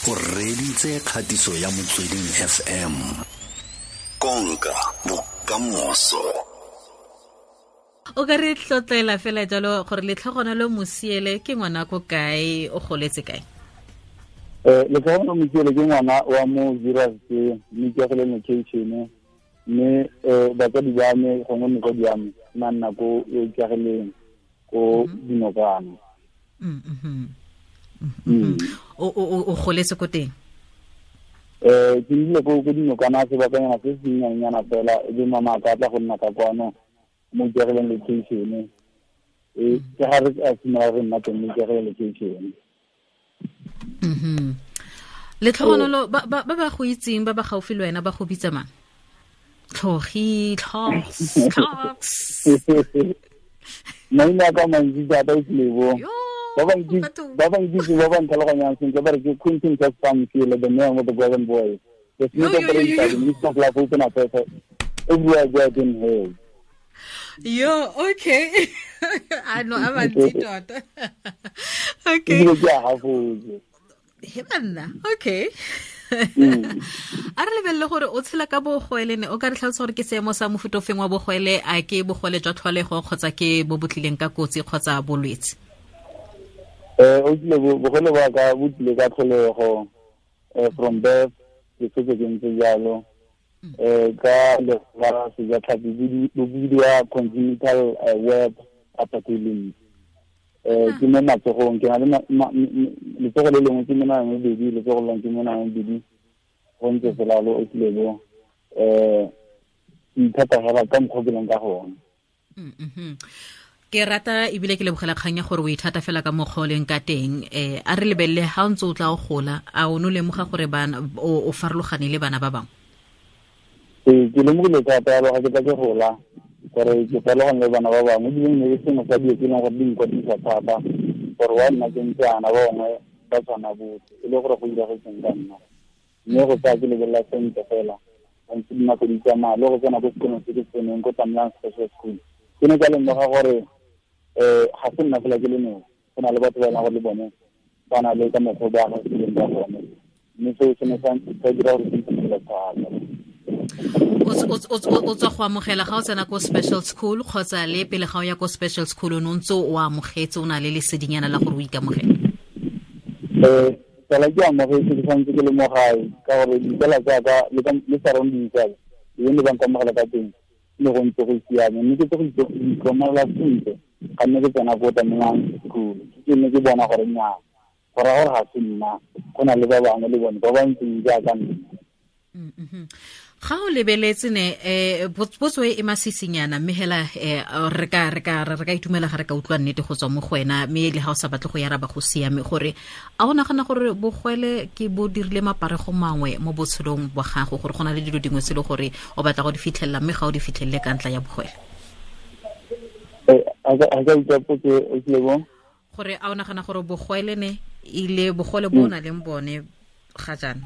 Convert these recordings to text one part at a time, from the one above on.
O reditse kgatiso ya Motsweding FM. Konka bokamoso. O ka re tlotlela fela jalo gore Letlhogonolo Mosiele ke ngwana ko kae, o goletse kae? Letlhogonolo Mosiele ke ngwana wa mo Zeerust, mme ke gole location, mme batsadi ba me gongwe motsadi wa me nna nna ko Ikageleng ko Dinokana. O goletse ko teng? Ke nnile ko Dinokana sebakanyana se se nnyanenyana fela, e be mama ka tla go nna ka kwano mo Ikageleng location. Ke ga re a simolola re nna teng mo Ikageleng location. Letlhogonolo, ba ba go itseng, ba ba gaufi le wena, ba go bitsa mang? Tlhogi, Tlhogs, Tlhogs. Maina ka mantsi thata o tlebo. Ba ba nkitse, ba ba ntlhaloganyang sentle, ba re ke Quentin Casper Mosiele, the man with the golden voice. The smith of the minister of life, open up everywhere I go in hell. Yo, okay. I know, I'm a tota. Okay. He banna, okay. A re lebelele gore o tshela ka bogwele ne, o ka re tlhalosa gore ke seemo sa mofuta ofeng wa bogwele, a ke bogwele jwa tlholego kgotsa ke bo bo tlileng ka kotsi kgotsa bolwetse? O tlile bogwele ba ka bo tlile ka tlholego, from birth ke setse ke ntse jalo. Ka la sejatlhapi bo bidiwa congenital web apathy. Ke mo matsogong, ke na le letsogo le lengwe ke menwana e mebedi, letsogo le lengwe ke menwana e mebedi, go ntse fela lo o tlile bo. Ke ithata fela ka mokgwa ke leng ka gone. Ke rata ebile ke lebogela kgang ya gore o ithata fela ka mokgwa o leng ka teng. A re lebelele ha o ntse o tla o gola, a o no lemoga gore bana o farologane le bana ba bangwe? Ke lemogile thata ga ke tla ke gola gore ke farologane le bana ba bangwe, ebile ne ke sengwe sa dilo tse e leng gore di nkwadisa thata gore wa nna ke ntse ana ba bangwe ba tshwana botlhe, e le gore go diragetseng ka nna. Mme go tsaya ke lebelela sentle fela ntse dinako di tsamaya, le go tsena ko sekolong se ke tseneng ko Tamlang Special School, ke ne ka lemoga gore ga se nna fela ke le nosi, go na le batho ba e leng gore le bone ba na le ka mokgwa ba agileng ka gone, mme seo se ne sa dira gore ke itumele thata. O tswa go amogela ga o tsena ko special school kgotsa le pele ga o ya ko special school o ne o ntse o amogetse, o na le lesedinyana la gore o ikamogele? Tsala ke amogetse ke santse ke le mo gae, ka gore ditsala tsa ka le surroundings tsa ka, le ne ba nkamogela ka teng, ne go ntse go siame. Mme ke tse go itlhokomela sentle ga nne ke tsena ko Tamlang School, ke ne ke bona gore nnyaa, go raya gore ga se nna, go na le ba bangwe le bone ba ba ntseng jaaka nna. Ga o lebeletse ne, potso e masisinyana, mme hela re ka itumela ga re ka utlwa nnete go tswa mo go wena, mme le ha o sa batle go yaraba go siame, gore a o nagana gore bogwele ke bo dirile maparego mangwe mo botshelong bwa gago, gore go na le dilo dingwe tse e le gore o batla go di fitlhelela mme ga o di fitlhelele ka ntla ya bogwele? A ka utlwa potso e tlile bo? Gore a o nagana gore bogwele ne ile bogole bo o na leng bone ga jaana,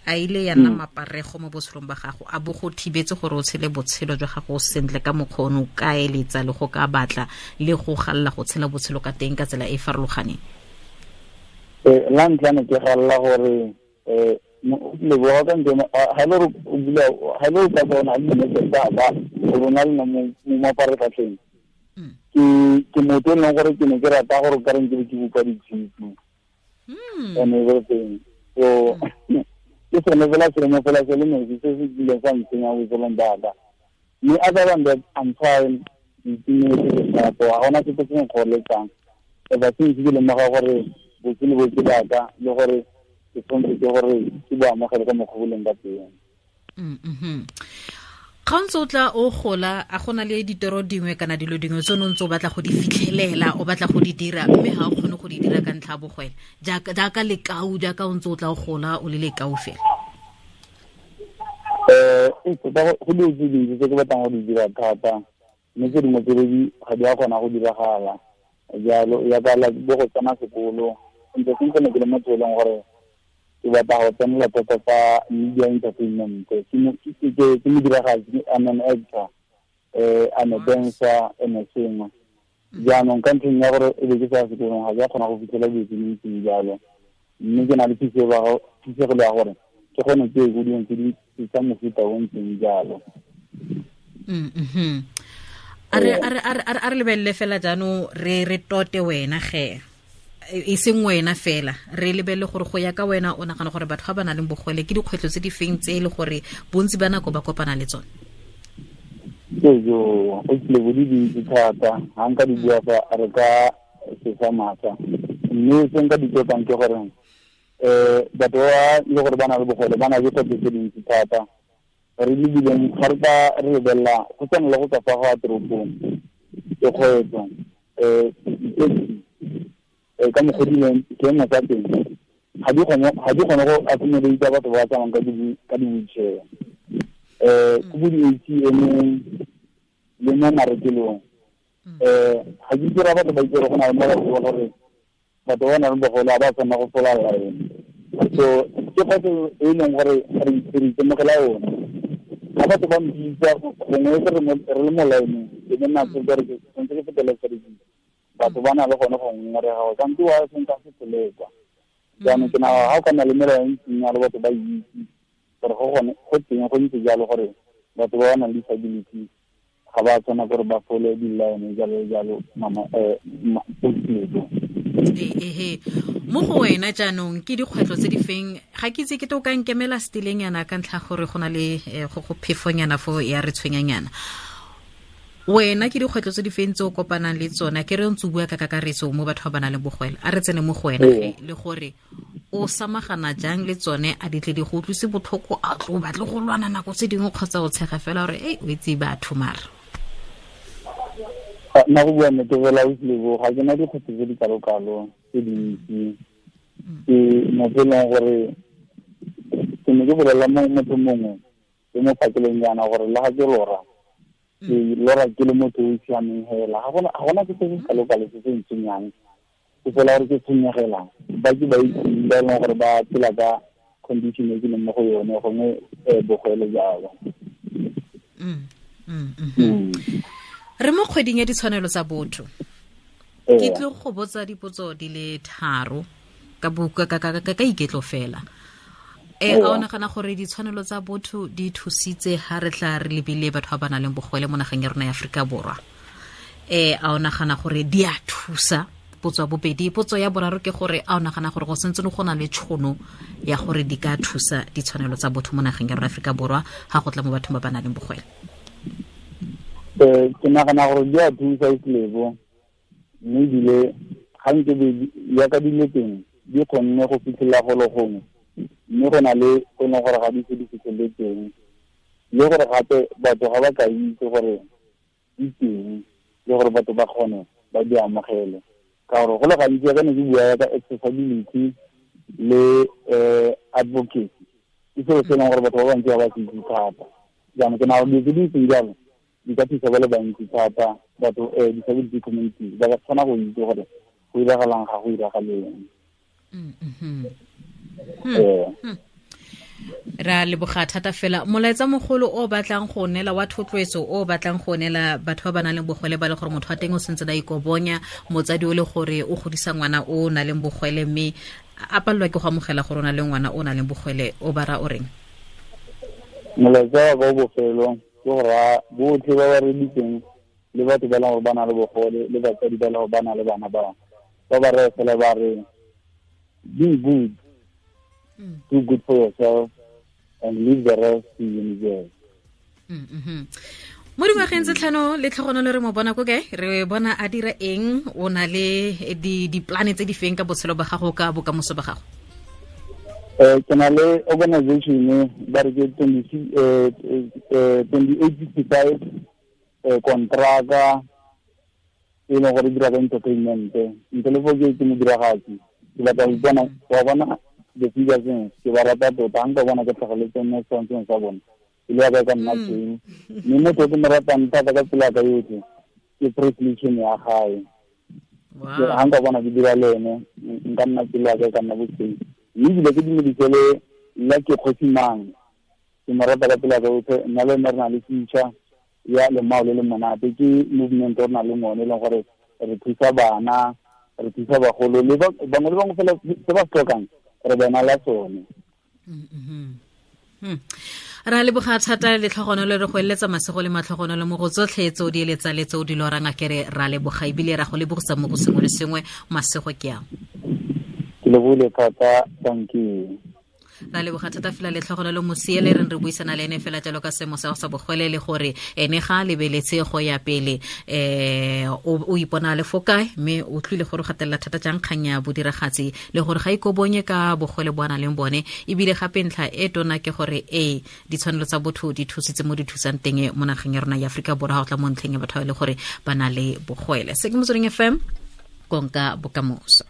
a ile ya nna maparego mo botshelong ba gago, a bo go thibetse gore o tshele botshelo jwa gago sentle ka mokgwa o ne o ka eletsa le go ka batla le go galela go tshela botshelo ka teng ka tsela e e farologaneng? La ntlha ne ke galela gore, leboga ka ntle, ha le gore o bula, ha le o ka bona le nnete tsa ka, o bona le nna mo maparatlhatlheng. Ke motho e leng gore ke ne ke rata gore o ka reng ke be ke bopa ditshipi. And everything. So, ke sone fela seemo fela se le nosi se se kileng sa ntsenya botshelong ba ka. Mme other than that, I'm fine. Ke itumetse ke shapo, ga gona sepe se nkgoreletsang. Ever since ke lemoga gore botshelo bo ke ba ka, le gore ke tshwanetse ke gore ke bo amogele ka mokgwa bo leng ka teng. Ga o ntse o tla o gola, a gona le ditoro dingwe kana dilo dingwe tse o ne o ntse o batla go di fitlhelela, o batla go di dira, mme ga o kgone go di dira ka ntlha ya bogwele? Jaaka lekau, jaaka o ntse o tla o gola o le lekau fela. Tota go dilo tse dintsi tse ke batlang go di dira thata, mme tse dingwe tse di ga di a kgona go diragala. Jalo, jaaka like bo go tsena sekolo, ntse sentse ne ke le motho e leng gore ke batla go tsenela thata tsa media entertainment. Ke modiragatsi, I'm an actor, I'm a dancer, and a singer. Jaanong ka ntlheng ya gore e be ke sa sekolong, ga ke a kgona go fitlhela dilo tse di ntseng jalo. Mme ke na le phisegelo ya gore ke kgone ke ye ko dilong tse di tsa mofuta o ntseng jalo. A re lebelele fela jaanong re tote wena ge e seng wena fela, re lebelele gore go ya ka wena o nagana gore batho ba ba nang le bogole ke dikgwetlho tse di feng tse e le gore bontsi ba nako ba kopana le tsone? Ejo, o tlile bo di dintsi thata, ga nka di bua fa re ka sesa maatla. Mme se nka di totang ke gore batho ba le gore ba na le bogole ba na le dikgwetlho tse dintsi thata. Re lebileng ga re ka re lebelela go tshwana le go tswa fa go ya toropong ke kgwetlho, ka mokgwa dileng seemo sa teng ga di kgone go accommodate batho ba ba tsamayang ka di-wheelchair. Ko bo di-ATM-eng le mo marekelong, ga ke itse batho ba itse gore go na le mo batho ba gore batho ba nang le bogole ga ba tshwanela go fola line. So ke kgwetlho e leng gore re itemogela yone. Ga batho ba mpitsa gongwe se re le mo line-eng, ke ne nna ke re ke tshwanetse ke fetele service. Batho ba na le gone go ngongorega gore kante wa se nka se fele kwa. Jaanong ke nagana ga o ka nna le melao e ntseng jalo, batho ba itse gore go gone go teng go ntse jalo gore batho ba ba nang le disability ga ba tshwana gore ba fole di-line jalo jalo, mama, Ehe, mo go wena jaanong ke dikgwetlho tse di feng? Ga ke itse ke to ka nkemela setileng yana ka ntlha gore go na le go phefonyana fo ya re tshwenyanyana. Wena ke dikgwetlho tse di feng tse o kopanang le tsona? Ke re ntse o bua ka kakaretso mo batho ba ba nang le bogwele, a re tsene mo go wena ge, le gore o samagana jang le tsone, a di tle di go utlwise botlhoko, a tlo batle go lwana nako tse dingwe kgotsa o tshega fela gore ei o itse batho mara? Nna go bua nnete fela, o tlile ga ke na dikgwetlho tse di kalo-kalo tse dintsi. Ke motho e leng gore ke ne ke bolelela motho mongwe ke mo phakeleng jaana gore le ga ke lora, ke lora ke le motho o siameng hela. Ga gona ke se se kalo-kalo se se ntshwenyang, ke fela gore ke tshwenyegela ba ke ba itseng ba e leng gore ba phela ka condition e ke leng mo go yone, gongwe bogole jalo. Re mo kgweding ya ditshwanelo tsa botho. Ke tlo go botsa dipotso di le 3 ka buka ka iketlo fela. A o nagana gore ditshwanelo tsa botho di thusitse ha re tla re lebile batho ba ba nang le bogole mo nageng ya rona ya Aforika Borwa? A o nagana gore di a thusa? Potso ya bobedi. Potso ya boraro ke gore a o nagana gore go sentse go na le tšhono ya gore di ka thusa ditshwanelo tsa botho mo nageng ya rona ya Aforika Borwa ha go tla mo bathong ba ba nang le bogole? Ke nagana gore di a thusa Islebo, mme ebile ga nke ya ka dilo teng di kgonne go fitlhelela golo gongwe, mme go na le go e leng gore ga di se di fitlhelele teng, le gore gape batho ga ba ka itse gore di teng, le gore batho ba kgone ba di amogele. Ka gore go le gantsi ka ne ke bua ka accessibility le advocacy, ke selo se e leng gore batho ba bantsi ga ba se itse thata. Jaanong ke nagana dilo tse di ntseng jalo di ka thusa ba le bantsi thata, batho disability community ba ka kgona go itse gore go iragalang ga go iragaleng. Ra leboga thata fela. Molaetsa mogolo o batlang go neela wa thotloetso o batlang go neela batho ba ba nang le bogole ba le gore motho wa teng o sentse a ikobonya, motsadi o le gore o godisa ngwana o nang le bogole mme a palelwa ke go amogela gore o na le ngwana o nang le bogole, o ba ra o reng? Molaetsa wa ka o bofelo ke go raya botlhe ba ba reditseng le batho ba e leng gore ba na le bogole le batsadi ba e leng gore ba na le bana ba ba ba raya fela ba re be good, do good for yourself and leave the rest to universe. Mo dingwageng tse 5 le tlhogonolo re mo bona ko kae? Re bona a dira eng? O na le di-plan tse di feng ka botshelo ba gago, ka bokamoso ba gago? Ke na le organization ba re ke 2865, kontraka e leng gore e dira ka entertainment. Ntle le foo ke modiragatsi, ke batla go ipona, wa bona the figures ke ba rata tota, ga nka bona ke tlhageletse mo setshwantshong sa bone, e le ya ka nna teng. Mme motho o ke mo ratang thata ka tsela ya ka yotlhe ke Presley ya gae. Ga nka bona ke dira le ene, nka nna tsela ya ka ka nna boteng. Mme ebile ke dumedise le nna ke kgosi mang, ke mo rata ka tsela ya ka yotlhe. Nna le ene re na le future ya lemao le le monate, ke movement o re nang le one e leng gore re thusa bana, re thusa bagolo le bangwe le bangwe fela se ba se tlhokang. Re bona la tsone. Ra leboga thata, letlhogonolo, re go eletsa masego le matlhogonolo mo go tsotlhe tse o di eletsa le tse o di lorang. A kere ra leboga, ebile ra go lebogisa mo go sengwe le sengwe. Masego ke ang. Ke lebogile thata, thank you. Ra leboga thata fela, letlhogonolo Mosiele re re buisana le ene fela jalo ka seemo sa go sa bogwele, le gore ene ga a lebeletse go ya pele o ipona le fo kae, mme o tlile gore o gatelela thata jang kgang ya bodiragatsi, le gore ga ikobonye ka bogwele bo a nang leng bone. Ebile gape ntlha e tona ke gore ee, ditshwanelo tsa botho di thusitse mo di thusang teng mo nageng ya rona ya Aforika Borwa ga go tla mo ntlheng ya batho ba e le gore ba na le bogwele. Se ke Motsweding FM, konka bokamoso.